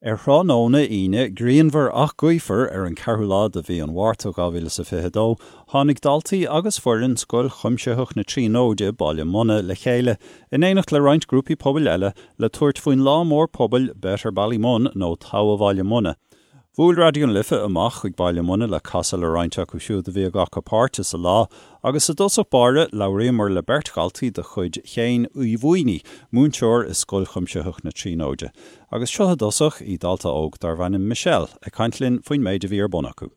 Ar thráthnóna Aoine grianmhar ach gaofar ar an 4ú lá de mhí an Mhárta 2022, tháinig daltaí agus foireann Scoil Chuimsitheach na Tríonóide, Baile Munna, le chéile, in éineacht le roinnt grúpaí pobail eile, le tabhairt faoin lá mór pobail Better Ballymun nó Togha Bhaile Munna. Bhuail Raidió na Life amach chuig Baile Munna le casadh le roinnt acu siúd a bhí ag glacadh páirte sa lá agus i dtosach báire labhraíomar le beirt dhaltaí de chuid Shéain Uí Mhaonaigh, múinteoir i Scoil Chuimsitheach na Tríonóide. Agus seo i dtosach í dalta óg darbh ainm Michelle ag caint linn faoin méid a bhí ar bun acu.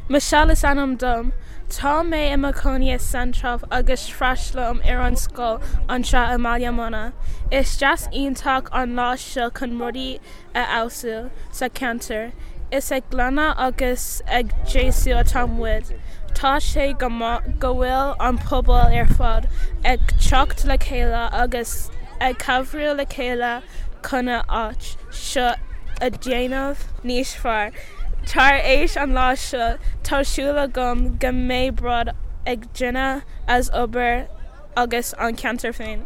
Michelle is ainm dom. Tá mé i mo chónaí i Central agus freastalaím ar an scoil anseo i mBaile Munna. Is deis iontach an lá seo chun rudaí a fheabhsú sa cheantar. Is ag glanadh agus ag deisiú atá muid. Tá sé go maith go bhfuil an pobal ar fad ag teacht le chéile agus ag cabhrú le chéile chun an áit seo a dhéanamh níos fearr. Tar éis an lá seo, tá súil agam go mbeidh bród ag duine as obair agus an ceantar féin.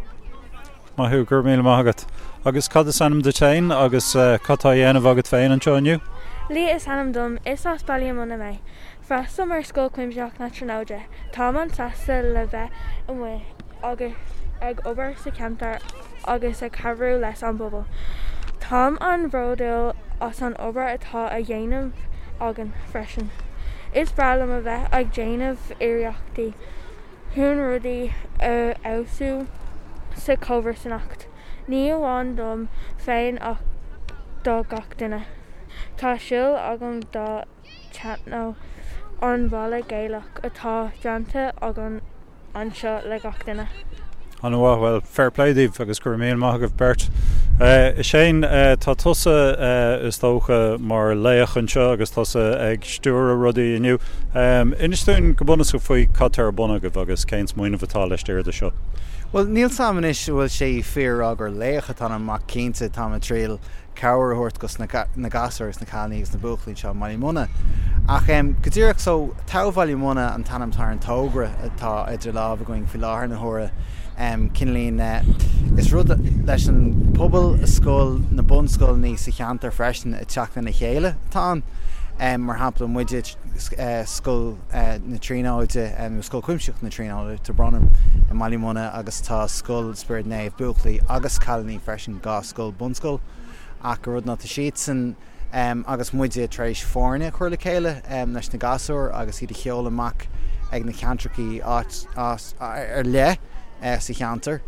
Maith thú, go raibh míle maith agat. Agus cad is ainm duit féin agus cad tá á dhéanamh agat féin anseo inniu? Leah is ainm dom, is as Baile Munna mé. Freastalaím ar Scoil Chuimsitheach na Tríonóide. Táim an-sásta le bheith amuigh agus ag obair sa cheantar agus ag cabhrú leis an bpobal. Táim an-bhródúil as an obair atá á dhéanamh againn freisin. Is breá liom a bheith ag déanamh iarrachtaí chun rudaí a fheabhsú sa chomharsanacht, ní amháin dom féin ach do gach duine. Tá súil agam go dtaitneoidh an balla Gaelach atá déanta againn anseo le gach duine. An-mhaith, bhuel, fair play daoibh agus go raibh míle maith agaibh beirt. A Shane, tá tusa, is dócha, mar laoch anseo agus tusa ag stiúradh rudaí inniu. Inis dúinn go bunúsach faoi cad tá ar bun agaibh agus cén smaoineamh atá laistiar de seo. Bhuel, níl 's a'm anois an bhfuil sé fíor a rá gur laoch atá ionam ach cinnte táim ag triail cabhair a thabhairt dos na gasúir agus na cailíní agus na buachaillí anseo i mBaile Munna. Ach go díreach so, Togha Bhaile Munna an t-ainm atá ar an togra atá idir lámh againn faoi láthair na huaire. Cineáilín, is rud leis an pobal, scoil, na bunscoileanna sa cheantar freisin ag teacht lena chéile atá ann. Mar shampla, muide, Scoil na Tríonóide, nó Scoil Chuimsitheach na Tríonóide, tá brón orm, i mBaile Munna agus tá Scoil Spioraid Naomh, buachaillí agus cailíní freisin, 2 scoil bunscoil ach an rud ná tá siadsan agus muide tar éis foirne a chur le chéile leis na gasúir agus iad a sheoladh amach ag na ceantrachaí áit ar leith sa cheantar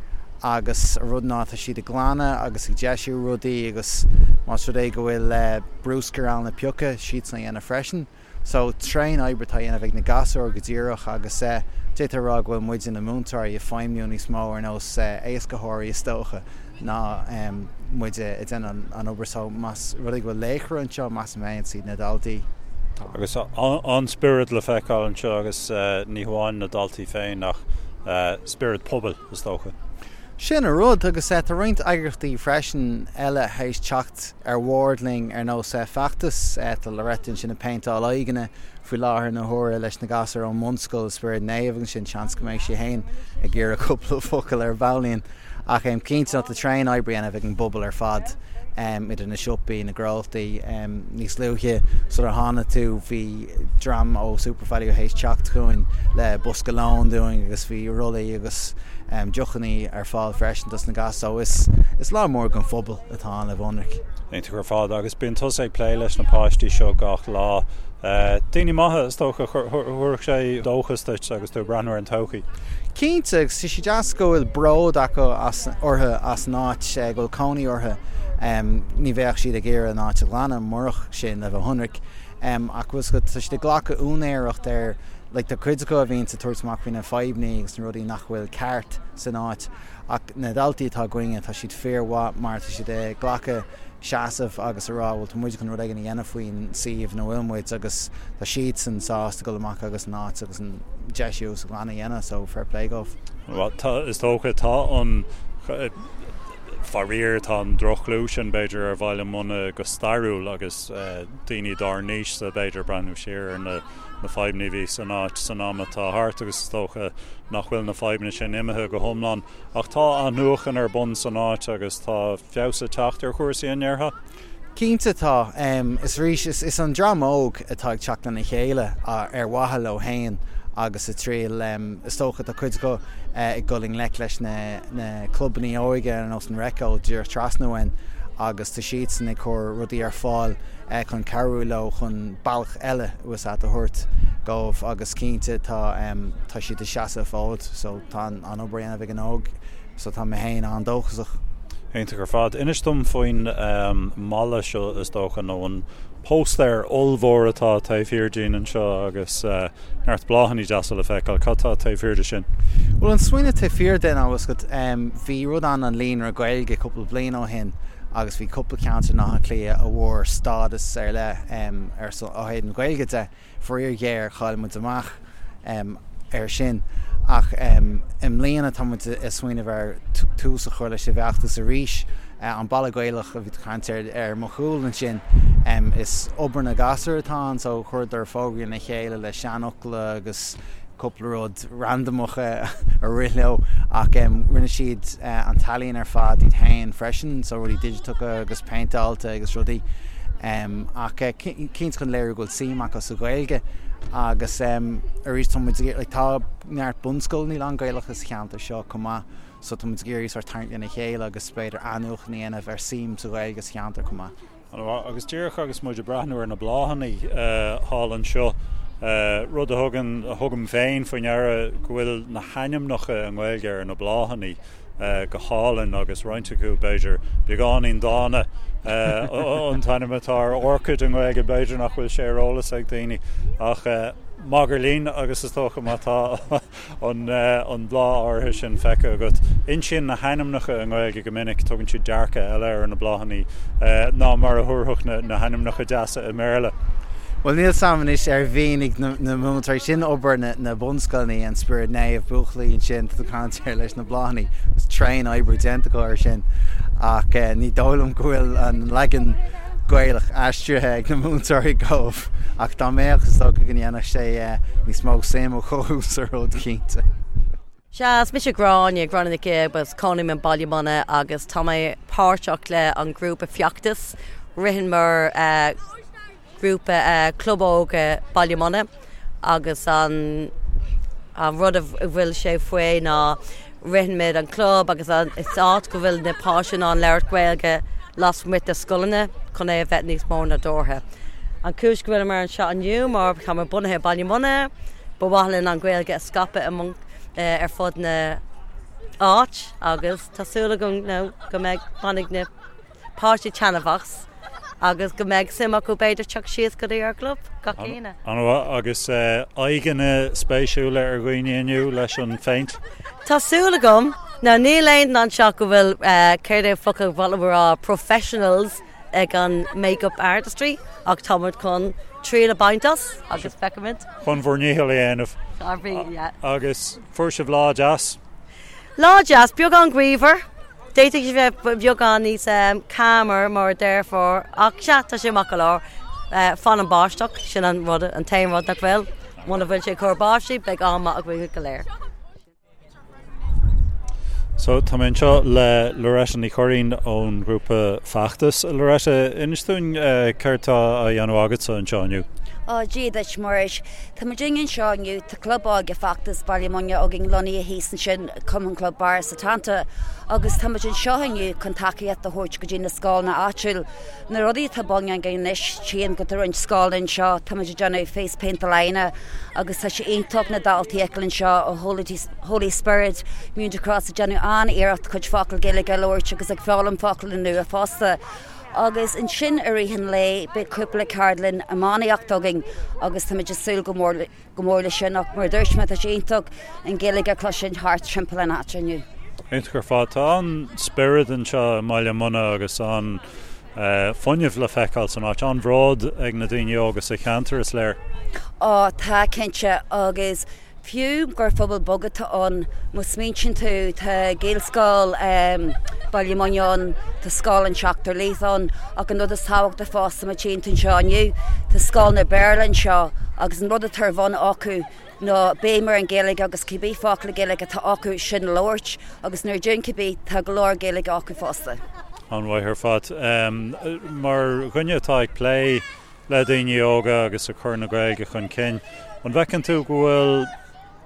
agus an rud ná tá siad ag glanadh agus ag deisiú rudaí agus más rud é go bhfuil bruscar ann le piocadh, siadsan a dhéanamh freisin. So, tréan oibre atá á dhéanamh ag na gasúir go díreach agus d'fhéadfá a rá go bhfuil muide na múinteoirí ag feidhmiú níos mó ar nós éascaitheoirí is dócha ná muide ag déanamh an obair. So, más rud é go bhfuil laochra anseo, measaim féin, is iad na daltaí. Agus an-spiorad le feiceáil anseo agus ní hamháin na daltaí féin ach spiorad pobail is dócha. Sin an rud agus tá roinnt eagraíochtaí freisin eile théis teacht ar bhord linn ar nós Feachtas. Tá Loretta ansin ag péinteáil aghaidheanna faoi láthair na huaire leis na gasúir ón mbunscoil Spiorad Naomh agus ansin seans go mbeidh sí féin ag iarraidh cúpla focal ar baillín. Ach cinnte tá tréan oibre á dhéanamh ag an bpobal ar fad idir na siopaí, na gnólachtaí. Níos luaithe sular tháinig tú bhí dream ó Supervalu théis teacht chugainn le bosca lóin dúinn agus bhí rollaí agus deochanna ar fáil freisin dos na gasúir. So is lá mór don phobal atá ann le bheith ionraic. Iontach ar fad. Agus bíonn tusa ag plé leis na páistí seo gach lá. Daoine maithe, is dócha, thabharfadh sé dóchas duit agus tú ag breathnú ar an todhchaí. Cinnte, agus tá sé deas go bhfuil bród acu as, orthu as an áit go bhfuil cónaí orthu. Ní bheadh siad ag iarraidh an áit a ghlanadh murach sin, le bheith ionraic. Ach bhfuil 's agat, tá siad ag glacadh úinéireacht ar, like tá cuid acu a bhíonns ag tabhairt amach faoi na fadhbanna agus na rudaí nach bhfuil ceart san áit. Ach na daltaí atá againne, tá siad fíormhaith mar tá siad ag glacadh seasamh agus a rá bhuel tá muid chun rud éigin a dhéanamh faoin suíomh ina bhfuil muid agus tá siadsan sásta dul amach agus an áit agus an deisiú agus an glanadh a dhéanamh so fair play dóibh. Bhuel tá, is dócha, tá an, faraor, tá an droch-chlú sin b'fhéidir ar Bhaile Munna go stairiúil agus daoine dár n-aois-sa b'fhéidir ag breathnú siar ar na na fadhbanna a bhí san áit san am atá thart agus is dócha nach bhfuil na fadhbanna sin imithe go hiomlán. Ach tá athnuachan ar bun san áit agus tá feabhas ag teacht ar chúrsaí, an ndéarfá? Cinnte tá. Is arís, is an dream óg atá ag teacht lena chéile ar mhaithe leo féin agus ag triail, is dócha, tá cuid acu ag dul i ngleic leis na clubanna óige ar nós an Recco díreach trasna uainn agus tá siadsan ag cur rudaí ar fáil chun cabhrú leo chun bealach eile a thabhairt dóibh agus cinnte tá tá siad ag seasamh an fód so tá an obair á dhéanamh ag an óg. So tá mé féin an-dóchasach. Iontach ar fad. Inis dom faoin mballa seo is dócha, nó an póstaer ollmhór atá taobh thiar dínn anseo agus neart bláthanna deasa le feiceáil. Cad tá taobh thiar de sin? Bhuel, an smaoineamh taobh thiar de ná, bhfuil 's agat, bhí rud ann an Líonra Gaeilge cúpla bliain ó shin agus bhí cúpla ceantar in Áth Cliath a bhfuair stádas ar leith ar son, ó thaobh na Gaeilge de. Faraor géar, chaill muid amach air sin ach i mbliana tá muid ag smaoineamh ar tús a chur leis an bhfeachtas arís. An Balla Gaelach a bhí tú ag caint air ar mo chúl ansin, is obair na gasúr atá ann so chuireadar fógraí lena chéile le seanfhocla agus cúpla rud randamach a rith leo ach rinne siad an t-ealaín ar fad iad féin freisin, so rudaí digiteacha agus péinteáilte agus rudaí ach cinnte chun léiriú go bhfuil suim acu sa Ghaeilge agus arís tá muid ag like tá neart bunscoileanna lán-Ghaelacha sa cheantar seo chomh maith so tá muid ag iarraidh sort tarraingt lena chéile agus b'fhéidir athnuachan a dhéanamh ar suim sa Ghaeilge sa cheantar chomh maith. An-mhaith. Agus díreach agus muid ag breathnú ar na bláthanna thall anseo, rud a thugann, a thugaim féin faoi ndeara go bhfuil na hainmneacha i nGaeilge ar na bláthanna go hálainn agus roinnt acu b'fhéidir beagáinín dána. An t-ainm atá ar orchid i nGaeilge b'fhéidir nach bhfuil sé ar eolas ag daoine ach magairlín agus is dócha má tá an bláth áirithe sin feicthe agat. Insíonn na hainmneacha i nGaeilge go minic, tugann siad dearcadh eile ar na bláthanna ná mar a thabharfadh na hainmneacha deasa i mBéarla. Bhuel, níl 's a'm anois ar mhínigh na múinteoirí sin obair na bunscoileanna, an Spiorad Naomh, buachaillí ansin, tá tú ag caint ar leis na bláthanna, is tréan oibre déanta acu ar sin ach ní dóigh liom go bhfuil an leagan Gaelach aistrithe ag na múinteoirí dóibh. Ach dá mbeadh, is dócha go ndéanfadh sé níos mó suim a chothú sa rud, cinnte. Sea, is mise Gráinne, Gráinne Nic Aoidh, agus cónaím i mBaile Munna agus tá mé páirteach le an grúpa Feachtas. Ritheann mar grúpa Club Óige Baile Munna agus an rud a bhfuil sé faoi ná Ritheann muid an club agus is áit go bhfuil na páistí in ann labhairt Gaeilge lasmuigh de scoileanna chun é a bheith níos mó nádúrtha. An cúis go bhfuileamar anseo inniu mar tá muid bunaithe i Baile Munna, ba mhaith linn an Ghaeilge a scaipeadh ar fud na áit agus tá súil agam go mbeidh bainfidh na páistí taitneamh as agus go mbeidh suim acu b'fhéidir teacht síos go dtí ár gclub gach Aoine. An-mhaith. Agus aghaidheanna spéisiúla ar dhaoine inniu leis an phéint? Tá súil agam. Now níl aon duine anseo go bhfuil, céard é an focal ba mhaith liom a rá, professionals ag an make-up artistry ach tá muid chun triail a bhaint as agus feicfimid. Chun bhur ndícheall a dhéanamh. Ár bhí, yeah. Agus fuair sibh lá deas? Lá deas, beagán gaofar. D'fhéadfadh sé bheith beagán níos calmer mar a déarfá, ach sea, tá sé maith go leor. Fan an báisteach, sin an rud, an t-aon rud nach bhfuil. Muna bhfuil sé ag cur báistí, beidh am maith againn go léir. So, tá mé anseo le Loretta Ní Churraoin ón ghrúpa Feachtas. Loretta, inis dúinn céard tá á dhéanamh agatsa anseo inniu? Ó, Dia duit, Muiris. Tá muid anseo inniu, tá Club Óige Feachtas Baile Munna againn lonnaithe thíos ansin, Cumann Club Barra Setanta, agus tá muid anseo inniu chun tacaíocht a thabhairt go dtí na scoileanna áitiúil. Na rudaí atá bun againn anois, tchím go tá roinnt scoileanna anseo, tá muid ag déanamh face paint aláine agus tá sé iontach na daltaí a fheiceáil anseo ó Holy Spirit, Münster Cross ag déanamh an-iarracht cuid focal Gaeilge a labhairt agus ag foghlaim focail nua fosta. Agus ansin i rith an lae beidh cúpla ceardlann iománaíocht againn agus táimid ag súil go mór go mór leis sin ach mar a dúirt mé tá sé iontach an Ghaeilge a chloisint thart timpeall an áit inniu. Iontach ar fad. Tá an-spiorad anseo i mBaile Munna agus an-fhuinneamh le feiceáil san áit. An-bhród ag na daoine óga sa cheantar, is léir. Ó tá, cinnte, agus Fiú gur phobal beag atá ann, má smaointíonn tú, tá Gaelscoil Baile Munna ann, tá Scoil an tSeachtar Laoch ann, ach an rud is tábhachtaí fosta má tchíonn tú anseo inniu, tá scoileanna Béarla anseo agus an rud atá ar bhun acu ná béim ar an Ghaeilge agus cibé focal Gaeilge atá acu sin a labhairt agus nuair a deireann cibé, tá go leor Gaeilge acu fosta. An-mhaith ar fad. Mar dhuine atá ag plé le daoine óga agus ag cur na Gaeilge chun cinn, an bhfeiceann tú go bhfuil,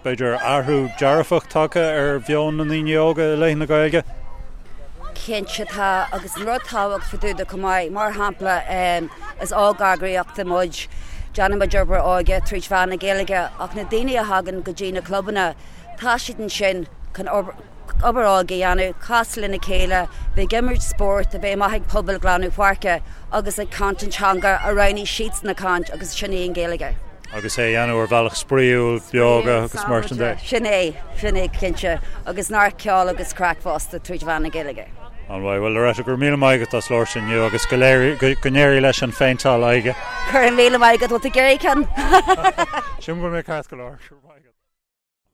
b'fhéidir, athrú dearfach tagtha ar mheon na ndaoine óga i leith na Gaeilge? Cinnte tá, agus an rud tábhachtach fá dtaobh de chomh maith, mar shampla, is óg-eagraíocht muid, déanann muid obair óige tríd mheán na Gaeilge, ach na daoine a thagann go dtí na clubanna, tá siad ansin chun obair óige a dhéanamh, casadh lena chéile, bheith ag imirt spóirt, a bheith amach ag pobal glanadh páirce agus ag caint an teanga a roghnaigh siadsan a chaint agus sin í an Ghaeilge. Agus é a dhéanamh ar bhealach spraíúil, beoga agus mar sin de. Sin é, sin é cinnte. Agus neart ceol agus craic fosta tríd mheán na Gaeilge. An-mhaith. Bhuel Loretta, go raibh míle maith agat as labhairt inniu agus go go n-éirí leis an phéinteáil aghaidhe. Go raibh míle maith agat, bhfuil tú ag iarraidh ceann? Sílim go bhfuil mé ceart go leor. Go raibh maith agat.